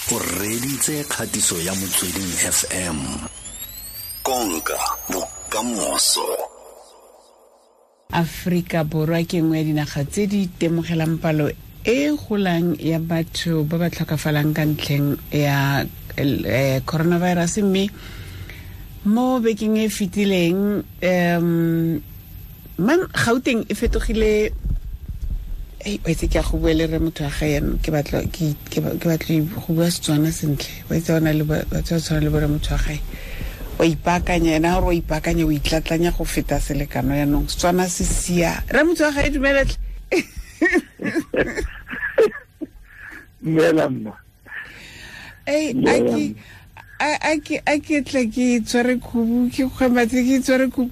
O reditse kgatiso ya Motsweding FM. Konka bokamoso. Afrika Borwa ke nngwe ya dinaga tse di itemogelang palo e golang ya batho ba ba tlhokafalang ka ntlheng ya coronavirus, mme mo bekeng e fetileng man Gauteng e fetogile. Wa itse ke a go bua le re motho wa ga yanong, ke batla go bua Setswana sentle. Wa itse ona le batho ba tshwana le bore motho wa gae wa ipaakanya, ena gore wa ipaakanya, o itlatlanya go feta selekano. Yanong Setswana se sia re motho wa gae, dumelatle. Dumela mma. A ke tle ke tshware khubu, ke kgwematse ke tshware khubu.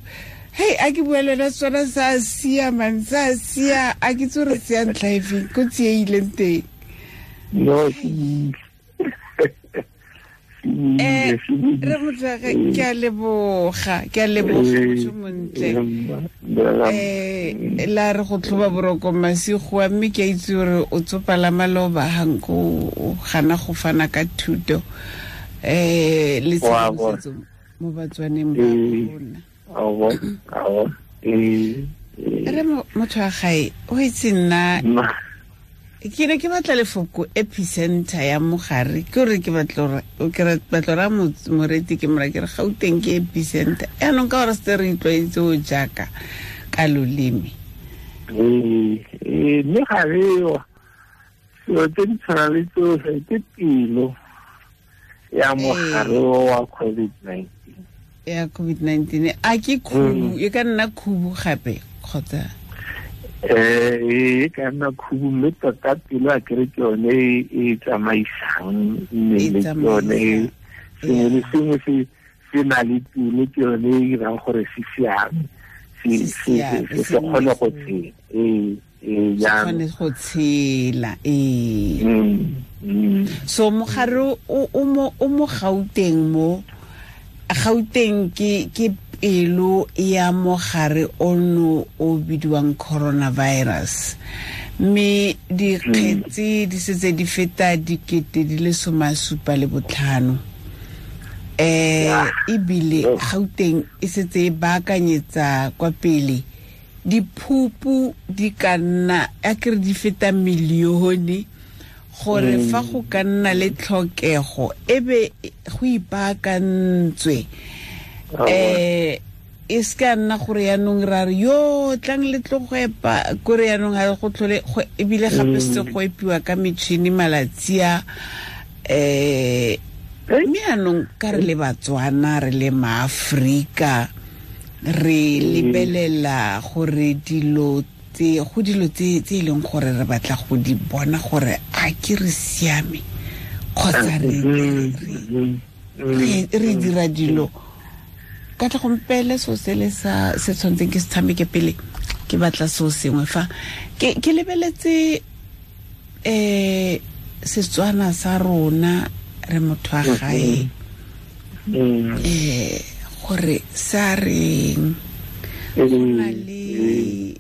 Hei, a ke bua le wena Setswana sa sia man, sa sia. A ke tse re tseya ntlha efeng ko tsie ileng teng? No, re motho ke a leboga, ke a leboga motho montle. La re go tlhoba boroko masigo, mme ke a itse gore o tsopala maloba hanko o gana go fana ka thuto le tshedimosetso mo Batswaneng ba rona. Re motho wa gae, o itse nna ke ne ke batla lefoko epicenter ya mogare, ke gore ke batla ra moreti ke mora ke re Gauteng ke epicenter. Yaanong ka gore se re itlwaetse o jaaka ka loleme. Mme ga reo selo tse di tshwana le tsotlhe ke pelo ya mogare wa COVID-19. Ya COVID-19 a ke khubu, e ka nna khubu gape kgotsa? E ka nna khubu, mme tota pelo a kere ke yone e tsamaisang mmele, ke yone sengwe le sengwe se na le pelo, ke yone e dirang gore se siame, se kgone go tshela. Kgone go tshela. So mogare o mo Gauteng, mo Gauteng ke pelo ya mogare ono o bidiwang coronavirus, mme dikgetsi di setse di feta 75,000. Ebile Gauteng e setse e baakanyetsa kwa pele diphupu di ka nna a kere di feta milione, gore fa go ka nna le tlhokego e be go ipaakantswe. E se ka nna gore yaanong ra re yo tlang le tlo go epa, kore yaanong ga go tlhole ebile gape se go epiwa ka metšhini malatsi a. Mme yaanong ka re le Batswana, re le maAforika, re lebelela gore dilo tse go dilo tse e leng gore re batla go di bona gore a ke re siame kgotsa re dira dilo ka tla gompele. So sele sa se tshwantseng ke se tshameke pele, ke batla so sengwe fa ke lebeletse Setswana sa rona re motho wa gae gore sa reng, go na le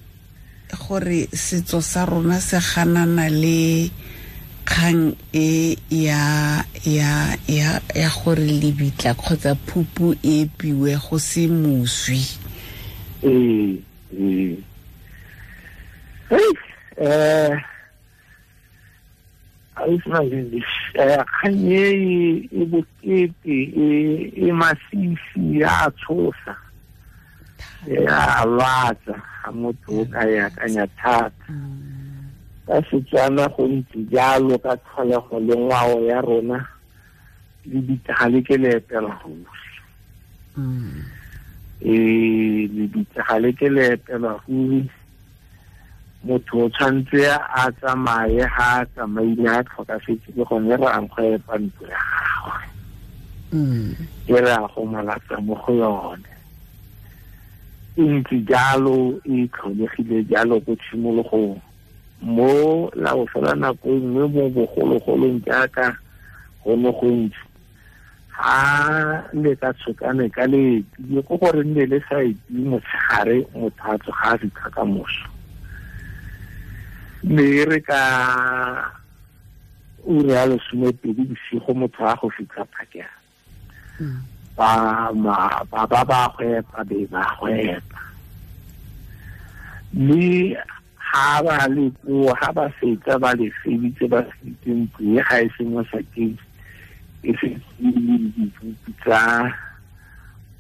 gore setso sa rona se ganana le kgang e ya ya ya ya gore lebitla kgotsa phupu e epiwe go se moswi. Kgang e bokete, e masisi, ya tshosa, ya lwatsa ga motho o ka e akanya thata. Ka Setswana go ntse jalo ka tlholego le ngwao ya rona, le bitsa le ke le epela ruri. Le bitsa le ke le epela ruri. Motho o tshwanetse a tsamaye, ga a tsamaile a tlhokafetse, ke gone re ang go epa ntlo ya gagwe, e re a go molatsa mo go yone. E ntse jalo, e tlholegile jalo ko tshimologong. Mo la go fela nako e nngwe mo bogologolong jaaka go ne go ntse, ga le ka tshokane ka le ko gore nne le sa epi motshegare, motho a tsoga a fitlha ka moso. Mme re ka ura ya 12 bosigo motho a go fitlha phakela. Ba ba ba ba go be ba go mme ha ba le ko ha ba fetsa ba le feditse ba feditse ntlo e ga e se mo sakeng e se dipupi tsa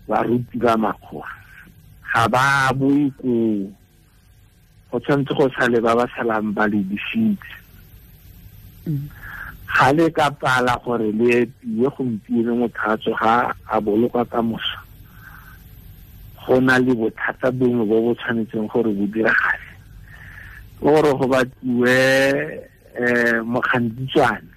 baruti ba makgowa ga ba boe ko go tshwanetse go sale ba ba salang ba le disitse. Ga le ka pala gore le epiwe gompieno motho a tsoga a bolokwa ka moso, go na le bothata bongwe bo bo tshwanetseng gore bo diragale, gore go batliwe mokgantitswane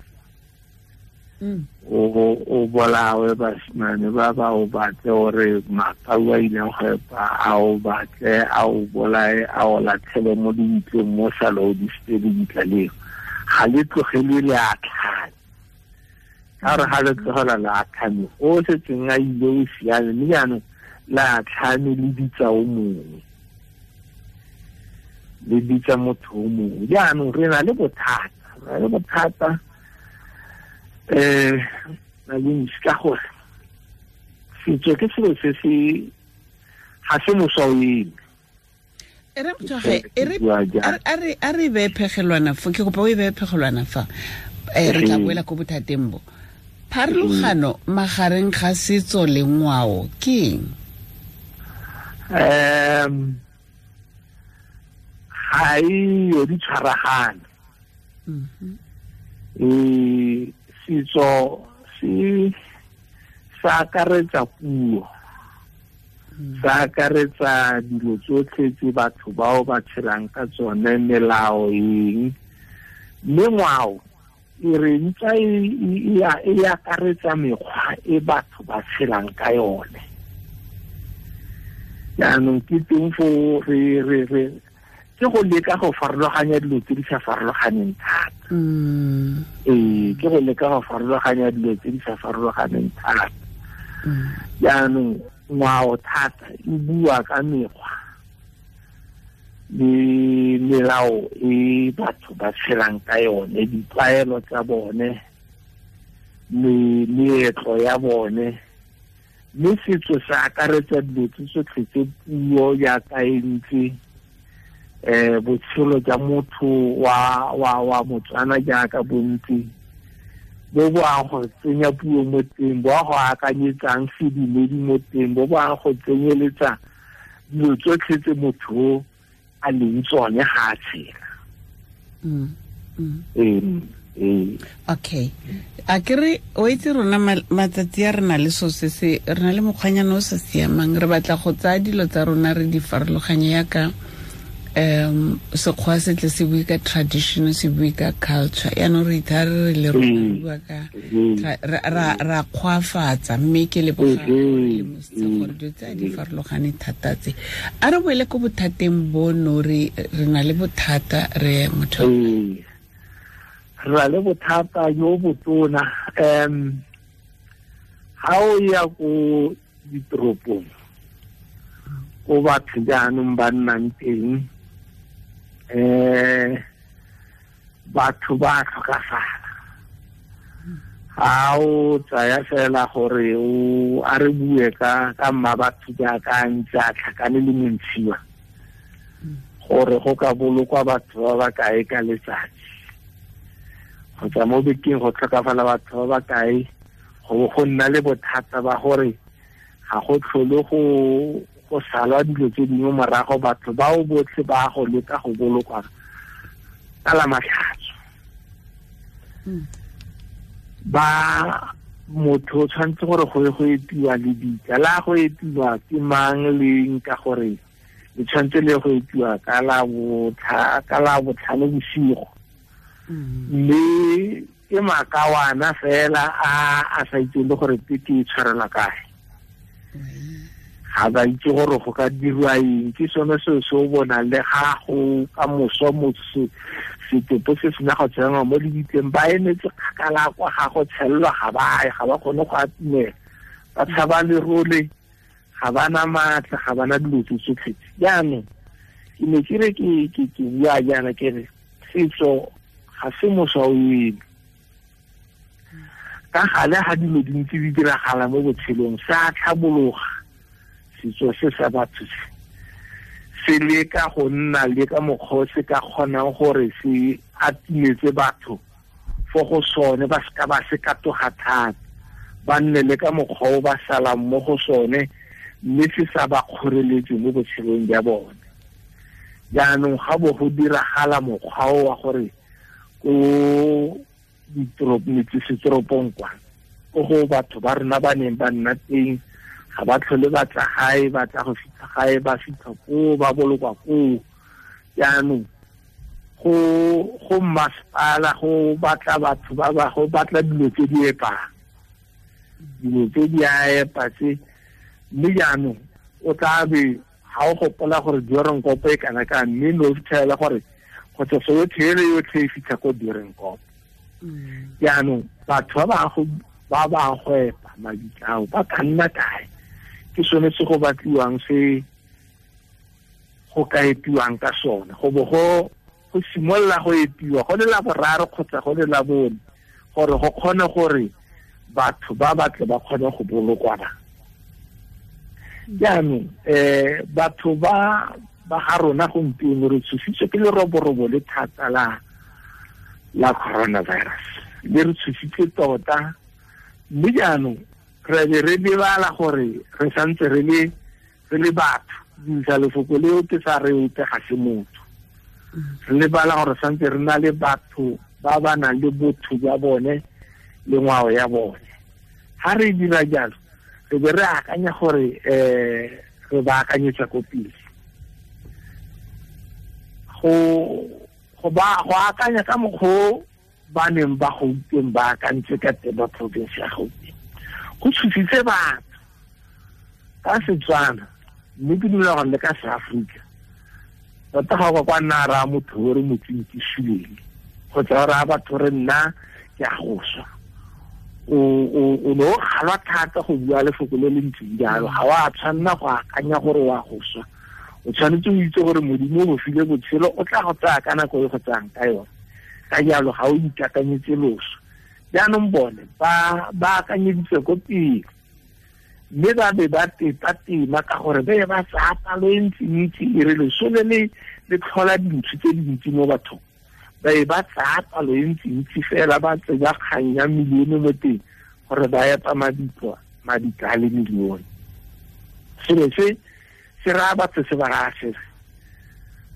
o bolawe basimane ba ba o batle gore makau a ileng go epa a o batle a o bolae a o latlhele mo dibitleng mo sale o disitse lebitla leo. Ga le tlogelwe le a tlhame, ka gore ga le tlogela le a tlhame o setseng a ile o siame, mme jaanong la tlhame le bitsa o mongwe, le bitsa motho o mongwe. Jaanong re na le bothata, ka gore setso ke selo se se ga se moswa o eme. A re beye phegelwana fa, ke kopa o e beye phegelwana fa, re tla boela ko bothateng bo. Pharologano magareng ga setso le ngwao ke eng? Ga e di tshwaragane. Setso se sa akaretsa puo, sa akaretsa dilo tsotlhe tse batho bao ba tshelang ka tsone, melao eng, mme ngwao e re ntsa e akaretsa mekgwa e batho ba tshelang ka yone. Jaanong ke teng fo re ke go leka go farologanya dilo tse di sa farologaneng thata. Ke go leka go farologanya dilo tse di sa farologaneng thata. Jaanong ngwao thata e bua ka mekgwa le melao e batho ba tshelang ka yone, ditlwaelo tsa bone, meetlo ya bone, mme setso se akaretsa dilo tse tsotlhe tse puo jaaka e ntse, botshelo jwa motho wa Motswana jaaka bontsi bo bo ang go tsenya puo mo teng, bo a go akanyetsang sedumedi mo teng, bo bo ang go tsenyeletsa dilo tsotlhe tse motho a leng tsone ga a tshela. Okay, a ke re o itse rona matsatsi a re na le so se se re na le mokgwanyana o sa siamang, re batla go tsaya dilo tsa rona re di farologanye yaka sekgwa se tle se bue ka tradition, se bue ka culture, yaanong re ithare re le rona bua ka ra kgwafatsa, mme ke leboga le mositse gore dilo tse a di farologane thata tse. A re boele ko bothateng bono, re na le bothata re motho re na le bothata jo botona. Ga o ya ko ditoropong ko batho jaanong ba nnang teng, batho ba tlhokafala. Ga o tsaya fela gore o a re bue ka mma batho jaaka ntse a tlhakane le montshiwa, gore go ka bolokwa batho ba ba kae ka letsatsi, kgotsa mo bekeng go tlhokafala batho ba ba kae, go nna le bothata ba gore ga go tlhole go salwa dilo tse dingwe morago, batho bao botlhe ba go leka go bolokwa ka la matlhatso. Ba motho o tshwanetse gore go ye go epiwa lebitla, la go epiwa ke mang leng, ka gore le tshwanetse le go epiwa ka la botlhano bosigo, mme ke makawana fela a sa itseng le gore peke e tshwarelwa kae, ga ba itse gore go ka dirwa eng. Ke sone seo se o bonang le ga go ka moso motho setopo se sena go tsenngwa mo lebitleng, ba emetse kgakala kwa ga go tshelelwa, ga ba ye, ga ba kgone go atumela, ba tshaba lerole, ga ba na maatla, ga ba na dilo tse tsotlhe. Jaanong ke ne ke re ke bua jaana ke re setso ga se moswa o eme. Ka gale ga dilo dintsi di diragala mo botshelong se a tlhabologa setso se sa batho se leka go nna le ka mokgwa se ka kgonang gore se atimetse batho fo go sone ba seka ba se katoga thata ba nne le ka mokgwa o ba salang mo go sone mme se sa ba kgoreletse mo botshelong jwa bone. Jaanong ga bo go diragala mokgwa o wa gore ko metsesetoropong kwa ko go batho ba rona ba neng ba nna teng ga ba tlhole ba tla gae ba tla go fitlha gae ba fitlha koo ba bolokwa koo. Jaanong go masepala go batla batho ba ba go batla dilo tse di epang dilo tse di a epa tse mme jaanong o tla be ga o gopola gore Doornkop e kana ka mme no fitlhela gore kgotsa soyotlhe ele yotlhe e fitlha ko Doornkop. Jaanong batho ba ba go epa mabitla ao ba ka nna kae? Ke sone se go batliwang se go ka epiwang ka sone go bo go simolola go epiwa go le la boraro kgotsa go le la bone gore go kgone gore batho ba batle ba kgone go bolokwa ba. Jaanong batho ba ga rona gompieno re tshositswe ke leroborobo le thata la coronavirus le re tshositse tota mme jaanong re be re lebala gore re santse re le batho dirisa lefoko leo ke sa re ope ga se motho re lebala gore santse re na le batho ba ba nang le botho jwa bone le ngwao ya bone. Ga re dira jalo re be re akanya gore re ba akanyetsa ko pele go akanya ka mokgwa ba neng ba Gauteng ba akantse ka teng ba province ya Gauteng go tshositse batho ka Setswana mme ke dumela gore le ka Seaforika tota ga o ka kwa nna raya motho o re motseng ke suleng kgotsa o raya batho re nna ke a go swa o ne o kgalwa thata go bua lefoko le le ntseng jalo ga o a tshwanela go akanya gore o a go swa o tshwanetse o itse gore Modimo o go file botshelo o tla go tsaya ka nako e go tsayang ka yone ka jalo ga o ikakanyetse loso. Jaanong bone ba akanyeditse ko pele mme ba be ba tepa-tema ka gore ba be ba tsaya palo e ntsi-ntsi e re loso le le tlhola dintho tse dintsi mo bathong ba e ba tsaya palo e ntsi-ntsi fela ba tsenya kgang ya milione mo teng gore ba epa mabitla a le milione. Selo se se raya batho se ba raya se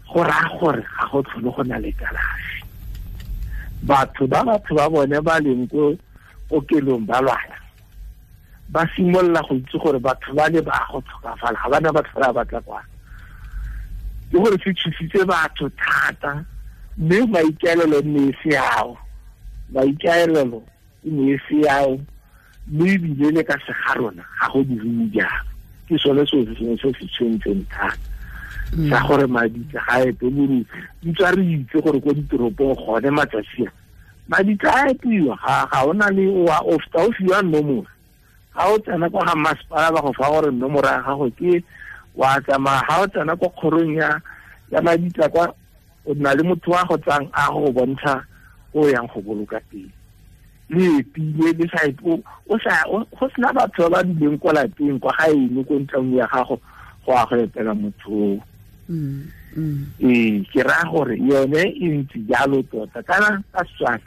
go raya gore ga go tlhole go na le kalafi. Batho ba bone ba leng ko kokelong ba lwala ba simolola go itse gore batho ba le ba go tlhokafala ga bana ba tlhola ba tla kwa ke gore se tshositse batho thata mme maikaelelo ne e se ao maikaelelo e ne e se ao mme ebile le ka sega rona ga go diriwe jalo. Ke sone seo se sengwe se se tshwentseng thata sa gore mabitla ga a epe bore ntse re itse gore ko ditoropong gone matsatsi a mabitla a epiwa ga ona le o feta o fiwa nomoro ga o tsena kwa ga masepala ba go fa gore nomoro ya gago ke wa tsamaya ga o tsena kwa kgorong ya mabitla kwa o na le motho wa go tsang a go bontsha o yang go boloka teng le epile le sa o sa go sena batho ba ba dileng kwa lapeng kwa gaeno ko ntlong ya gago go a go etela motho. Ee ke raya gore yone e ntse jalo tota kana ka Setswana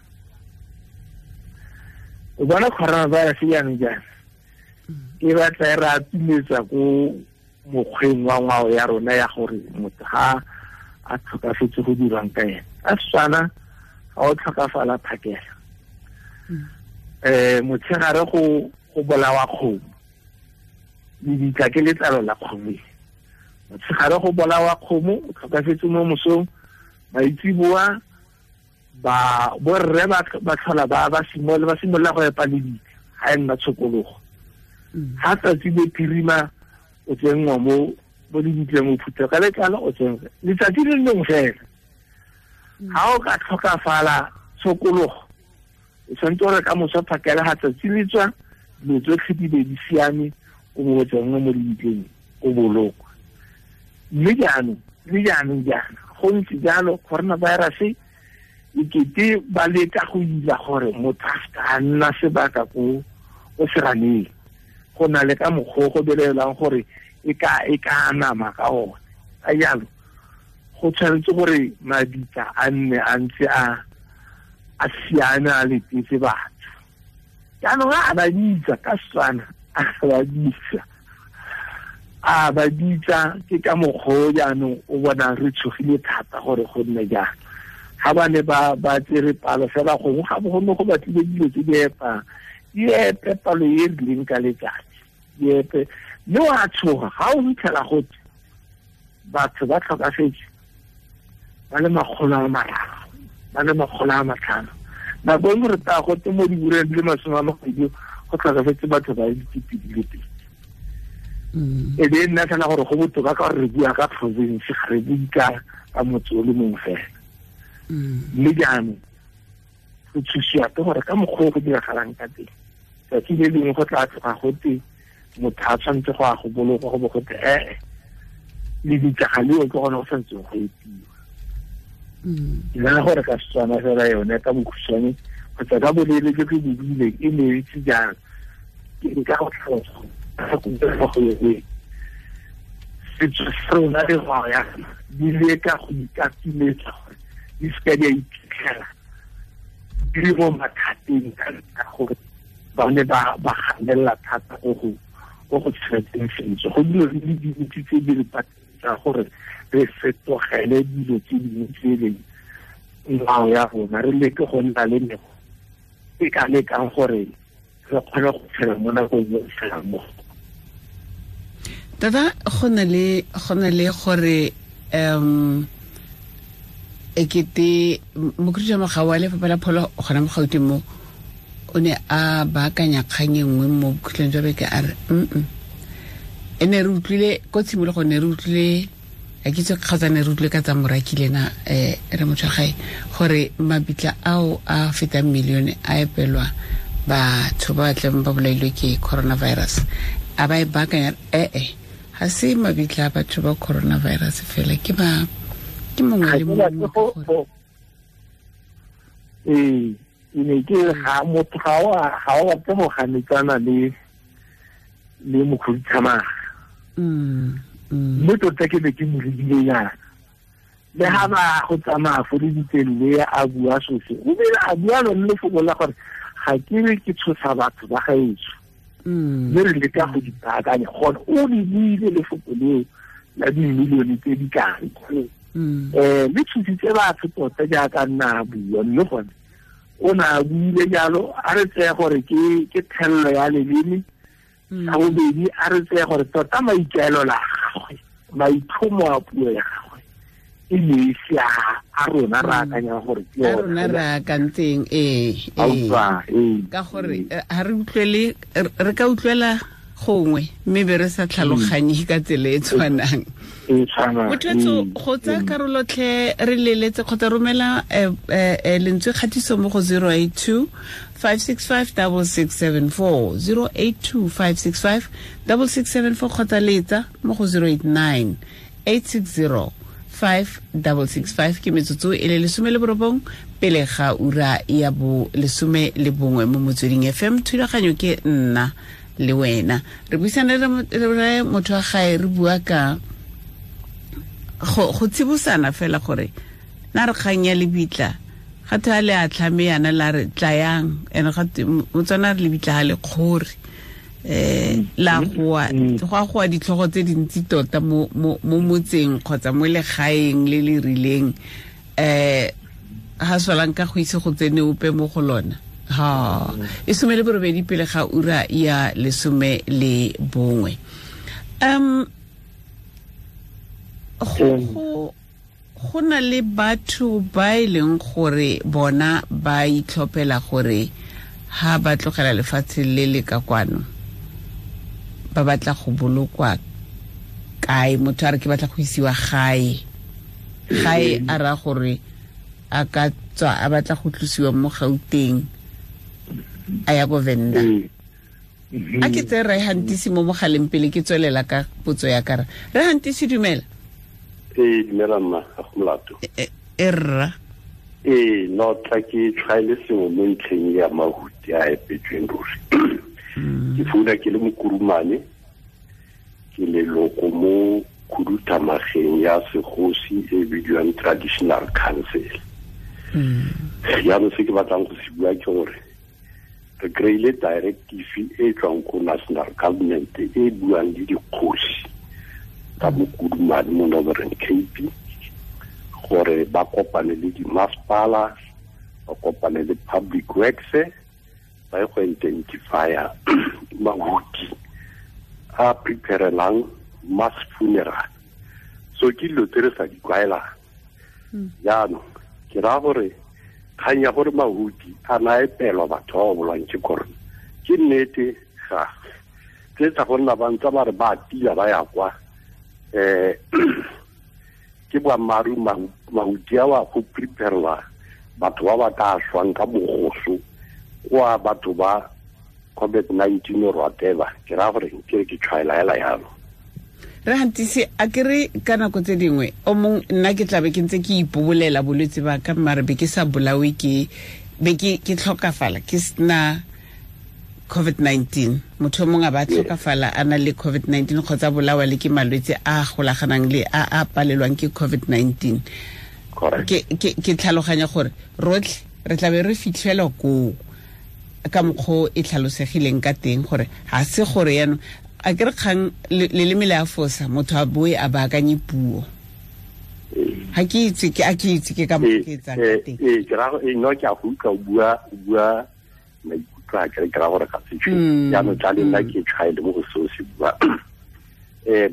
o bona coronavirus jaanong jaana e batla e re atumetsa ko mokgweng wa ngwao ya rona ya gore motho ga a tlhokafetse go dirwang ka ene. Ka Setswana ga o tlhokafala phakela motshegare go bolawa kgomo lebitla ke letlalo la kgomo motshegare go bolawa kgomo o tlhokafetse mo mosong maitsiboa ba borre ba tlhola ba simolola go epa lebitla ga e nna tshokologo ga tsatsi le phirima o tsenngwa mo lebitleng o phutha ka letlalo o tsenngwa letsatsi le lengwe fela ga o ka tlhokafala tshokologo o tshwanetse gore ka moso phakela ga tsatsi le tswa dilo tsotlhe di be di siame o bo o tsenngwa mo lebitleng o bolokwa. Mme jaanong le jaanong jaana go ntse jalo coronavirus Ikete ba leka go ila gore motho a seka a nna sebaka ko seraneng. Go na le ka mokgwa go belelang gore e ka nama ka one. Ka jalo go tshwanetse gore mabitla a nne a ntse a siame a letetse batho. Jaanong a ba bitsa ka Setswana, a ba bitsa ke ka mokgwa jaanong o bonang re tshogile thata gore go nne jang. Ga ba ne ba tsere palo fela gongwe ga bo gone go batlile dilo tse di epang, di epe palo e rileng ka letsatsi, di epe. Mme wa tshoga ga o fitlhela gote batho ba tlhokafetse ba le 300, ba le 500. Nako e nngwe re taya gote mo diureng di le 20 go tlhokafetse batho ba le 2,000. E be nna fela gore go botoka ka gore re bua ka province, ga re bue ka motse o le mongwe fela. Mme jaanong go tshusiwa ke gore ka mokgwa o go diragalang ka teng, tsatsi le lengwe go tla tloga gote motho a tshwanetse go ya go bolokwa, go bo gote ee lebitla ga leo ke gone go tshwanetseng go epiwa. Ke nagana gore ka Setswana fela yone ka bokhutshwane kgotsa ka boleele jo ke bo buileng e ne itse jang, ke nka go tlhalosa go yone. Setso sa rona le ngwao ya rona di leka go ikatumetsa gore di seka di a iphitlhela di le mo mathateng ka gore ba ne ba ganelela thata go go tshegetseng setso. Go dilo di le dintsi tse di re patetsang gore re fetogele dilo tse dingwe tse e leng ngwao ya rona, re leke go nna le mekgwa e ka lekang gore re kgone go tshela mo nakong e re tshelang mo. Tata, go na le gore ekete mokhuduthamaga wa Lefapha la Pholo gona mo Gauteng mo o ne a baakanya kgang e nngwe mo bokhutlong jwa beke, a re e ne re utlwile ko tshimologong, ne re utlwile a ke itse kgotsa ne re utlwile ka tsa moraki lena re motho gae gore mabitla ao a fetang milione a epelwa batho ba tleng ba bolailwe ke coronavirus. A ba e baakanya ga se mabitla a batho ba coronavirus fela, ke ba ke mongwe le mongwe. Ee, ne ke ga motho ga o batle go ganetsana le mokhuduthamaga. Mme tota ke be ke mo lebile yana le ga ba go tsamaya fo lebitseng le a bua sose, o bile a bua lone lefoko la gore ga ke re ke tshosa batho ba gaetsho, mme re leka go dipaakanya. Gone o le buile lefoko leo la dimilione tse di kae, le tshositse batho tota jaaka nna a bua. Mme gone o ne a buile jalo, a re tseye gore ke thelelo ya leleme. Sa bobedi, a re tseye gore tota maikaelelo a gagwe, maitlhomo a puo ya gagwe e ne e se a rona re akanyang gore ke a rona re akantseng. Ka gore ga re utlwele, re ka utlwela gongwe mme be re sa tlhaloganye ka tsela e tshwanang. Motho go tsaya karolotlhe re leletse kgotsa romela lentswe kgatiso mo go 082 565 6674, 082 565 6674 kgotsa letsa mo go 089 860 5665. Ke metsotso e le 19 pele ga ura ya bo 11 mo Motsweding FM. Thulaganyo ke nna le wena, re buisana le motho wa gae, re bua ka go tsibosana fela gore na re kgang ya lebitla ga tha le a tlhame yana la re tlayang ene ga motswana re lebitla ga le kgore la goa go a goa ditlhogo tse dintsi tota mo motseng kgotsa mo legaeng le le rileng, ha solang ka go itse go tsene ope mo go lona. Ha e 18 pele ga ura ya 11. Go na le batho ba e leng gore bona ba itlhophela gore ha ba tlogela lefatshe le le ka kwano ba batla go bolokwa kae. Motho a re ke batla go isiwa gae, gae a ra gore a ka tswa a batla go tlosiwa mo Gauteng a ya ko Venda. A ke tse re hantisi mo mogaleng pele ke tswelela ka potso ya kara. Re hantisi, dumela. Ee, dumela mma, ga go molato. E rra. Ee, no tla ke tshwaele sengwe mo ntlheng ya mahuti a epetsweng ruri. Ke founa ke le mokurumane, ke leloko mo khuduthamageng ya segosi e bidiwang Traditional Council. Jaanong se ke batlang go se bua ke gore re kry-ile directive e tswang ko national government e buang le dikgosi ka mokurumane mo Northern Cape gore ba kopane le dimasepala, ba kopane le public works, ba ye go identifya mahuti a preparelang mass funeral. So ke dilo tse re sa di tlwaelang. Jaanong ke raya gore kgang ya gore mahuti a na epelwa batho ba ba bolwang ke corona ke nnete ga tse tsa go nna ba ntse ba re ba tila ba ya kwa ke boammaaruri mahuti a wa go preparela batho ba ba ka swang ka mogoso kwa batho ba COVID-19 or whatever. Ke raya gore ke re ke tshwaela hela yalo. Re hantisi a ke re ka nako tse dingwe o mong nna ke tlabe ke ntse ke ipobolela bolwetse ba ka mare be ke sa bolawe ke be ke tlhokafala ke sena COVID-19. Motho o mongwe a ba tlhokafala a na le COVID-19 kgotsa bolawa le ke malwetse a golaganang le a a palelwang ke COVID-19. Ke tlhaloganya gore rotlhe re tlabe re fitlhelwa koo ka mokgwa e tlhalosegileng ka teng gore ga se gore yaanong a ke re kgang leleme le a fosa motho a boe a baakanye puo. Ga ke itse ke a ke itse ke ka mokgwa ke etsang ka teng. Ee, ke ra no ke a go utlwa o bua maikutlo a ke ra gore ga se tshwe. Jaanong tla le nna ke tshwaele mo go seo se bua.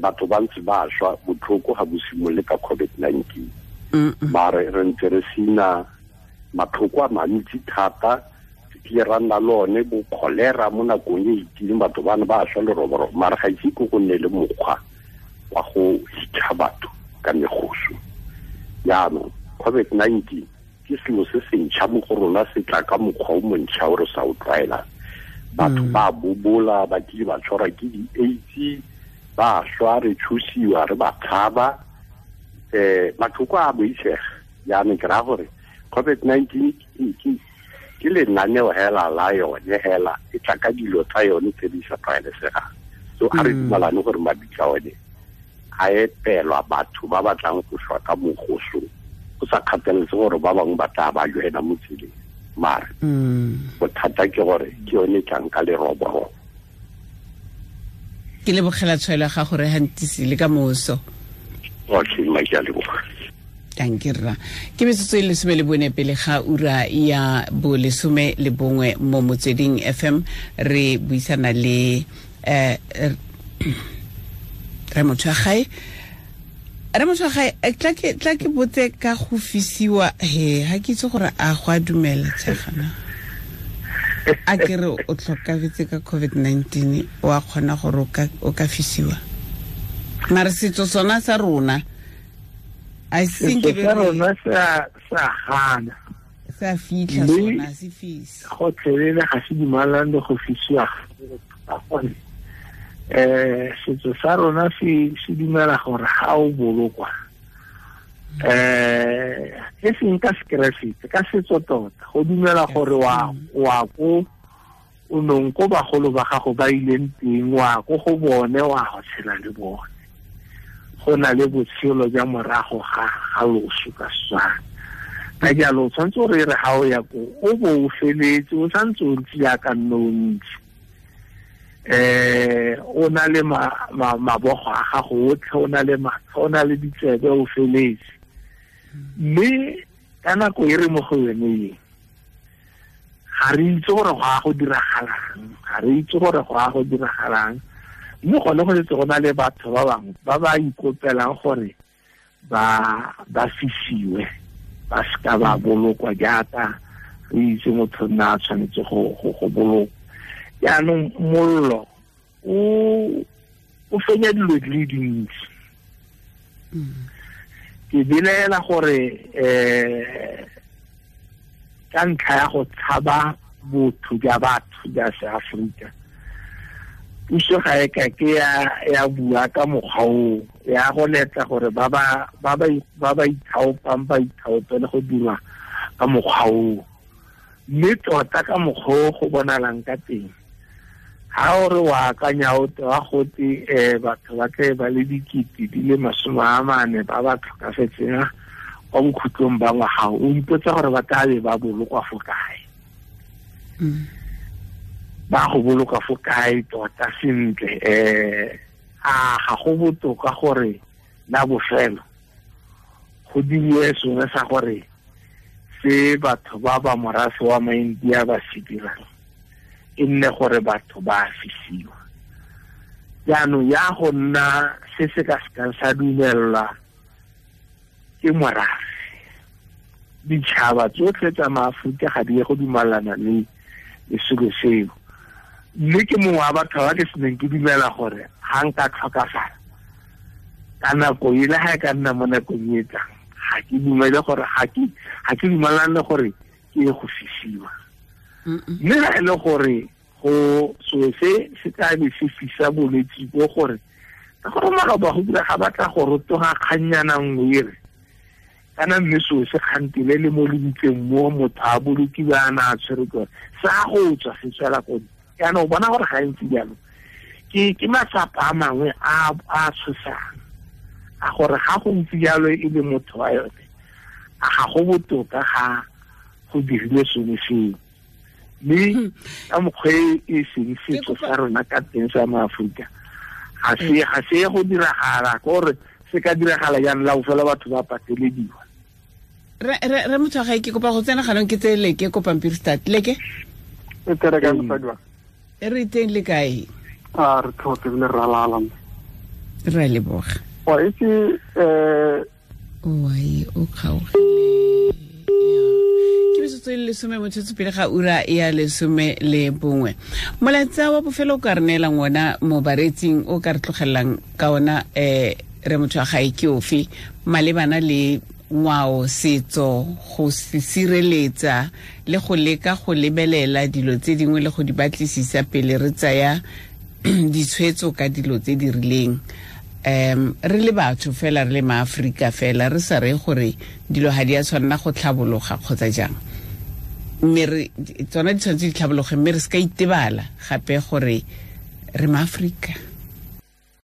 Batho ba ntse ba shwa botlhoko ga bo simolole ka COVID-19. Mare re ntse re sena matlhoko a mantsi thata ke ra nna le one bo kholera mo nakong e itileng batho bana ba shwa leroborobo mare ga ise ko go nne le mokgwa wa go hitlha batho ka megoso. Jaanong COVID-19 ke selo se se ntšha mo go rona, se tla ka mokgwa o montšha o re sa o tlwaelang. Batho ba bobola, ba kile ba tshwarwa ke di-AIDS, ba shwa, re tshosiwa, re ba tshaba, matlhoko a boitshega. Jaanong ke raya gore COVID-19 ke lenaneo hela la yone hela e tla ka dilo tsa yone tse di sa tlwaelesegang. So a re dumalane gore mabitla one a epelwa batho ba batlang go shwa ka mogoso go sa kgathaletse gore ba bangwe ba tla ba joena mo tseleng. Mare bothata ke gore ke yone e tlang ka leroborobo. Ke lebogela tshwaelo ya gago re hantisi le ka moso. Okay, mma ke a leboga. Danke rra. Ke metsotso e 14 pele ga ura ya bo 11 mo Motsweding FM re buisana le re motho wa gae. Re motho wa gae tla ke botse ka go fisiwa he ha ke itse gore a go a dumela tshegana. A ke re o tlhokafetse ka COVID-19 o a kgona gore o ka fisiwa. Mare setso sona sa rona I think rona sa gana sa fitlha sona se fisa gotlhelele ga se dumalane le go fisiwa ka gone. Setso sa rona se dumela gore ga o bolokwa e seng ka sekeresete, ka setso tota go dumela gore wa ko o nong ko bagolo ba gago ba ileng teng, wa ko go bone wa go tshela le bone. Go na le botshelo jwa morago ga loso ka Setswana. Ka jalo o tshwanetse gore e re ga o ya ko o bo o feletse, o santse o ntse jaaka nne o ntse. O na le mabogo a gago otlhe, o na le matlho, o na le ditsebe, o feletse. Mme ka nako e re mo go yone e ga re itse gore go a go diragalang, ga re itse gore go a go diragalang. Mme gone go setse go na le batho ba bangwe ba ba ikopelang gore ba fisiwe, ba seka ba bolokwa jaaka re itse motho nna a tshwanetse go bolokwa. Jaanong mollo o fenya dilo di le dintsi. Ke belaela gore ka ntlha ya go tshaba botho jwa batho jwa seAforika, puso ga e ka ke ya bua ka mokgwa oo, ya go letla gore ba ba ithaopang ba ithaopele go dira ka mokgwa oo. Mme tota ka mokgwa o go bonalang ka teng, ha o re wa akanya o te wa gote batho ba tle ba le 40 ba ba tlhokafetseng kwa bokhutlong ba ngwaga, o ipotsa gore ba tla be ba bolokwa fo kae. Ba go boloka fo kae tota sentle. A ga go botoka gore la bofelo go diriwe sengwe sa gore se batho ba ba morafe wa maIndia ba se dirang e nne gore batho ba fisiwa. Jaanong ya go nna se se ka sekang sa dumelelwa ke morafe, ditšhaba tsotlhe tsa maAforika ga di ye go dumalana le selo seo. Mme ke mongwe wa batho ba ke seneng ke dumela gore ga nka tlhokafala ka nako e le ga e ka nna mo nakong e tlang, ga ke dumele gore ga ke dumalane gore ke ye go fisiwa. Mme ga e le gore go selo se se tla be se fisa bolwetse bo gore ka gore maloba go dira ga batla go rotoga kgannyana nngwe e re kana mme seo se kgantile le mo lebitseng mo motho a bolokiwa a na a tshwere ke sa go tswa se tswela ko. Jaanong o bona gore gantsi jalo ke matsapa a mangwe a a tshosang a gore ga go ntse jalo e le motho wa yone, a ga go botoka ga go dirile sengwe seo. Mme ka mokgwa e seng setso sa rona ka teng sa maAforika ga se go diragala, gore se ka diragala jaanong la bofelo batho ba patelediwa. Re motho wa gae ke kopa go tsena ganong ke tse leke ko pampiri start leke e tere ka mosadi wa e re teng le kae? A re tlhotse le ralala re leboga. Wa itse oi o kgaogile ke metsotso e le 10 motsotso pele ga ura ya 11. Molaetsa wa bofelo o ka re neelang ona mo baretsing o ka re tlogelelang ka ona re motho wa gae ke ofe malebana le ngwao, setso, go se sireletsa le go leka go lebelela dilo tse dingwe le go di batlisisa pele re tsaya ditshwetso ka dilo tse di rileng. Re le batho fela, re le maAforika fela, re sa re gore dilo ga di a tshwanela go tlhabologa kgotsa jang, mme re tsona di tshwanetse di tlhabologe, mme re se ka itebala gape gore re maAforika.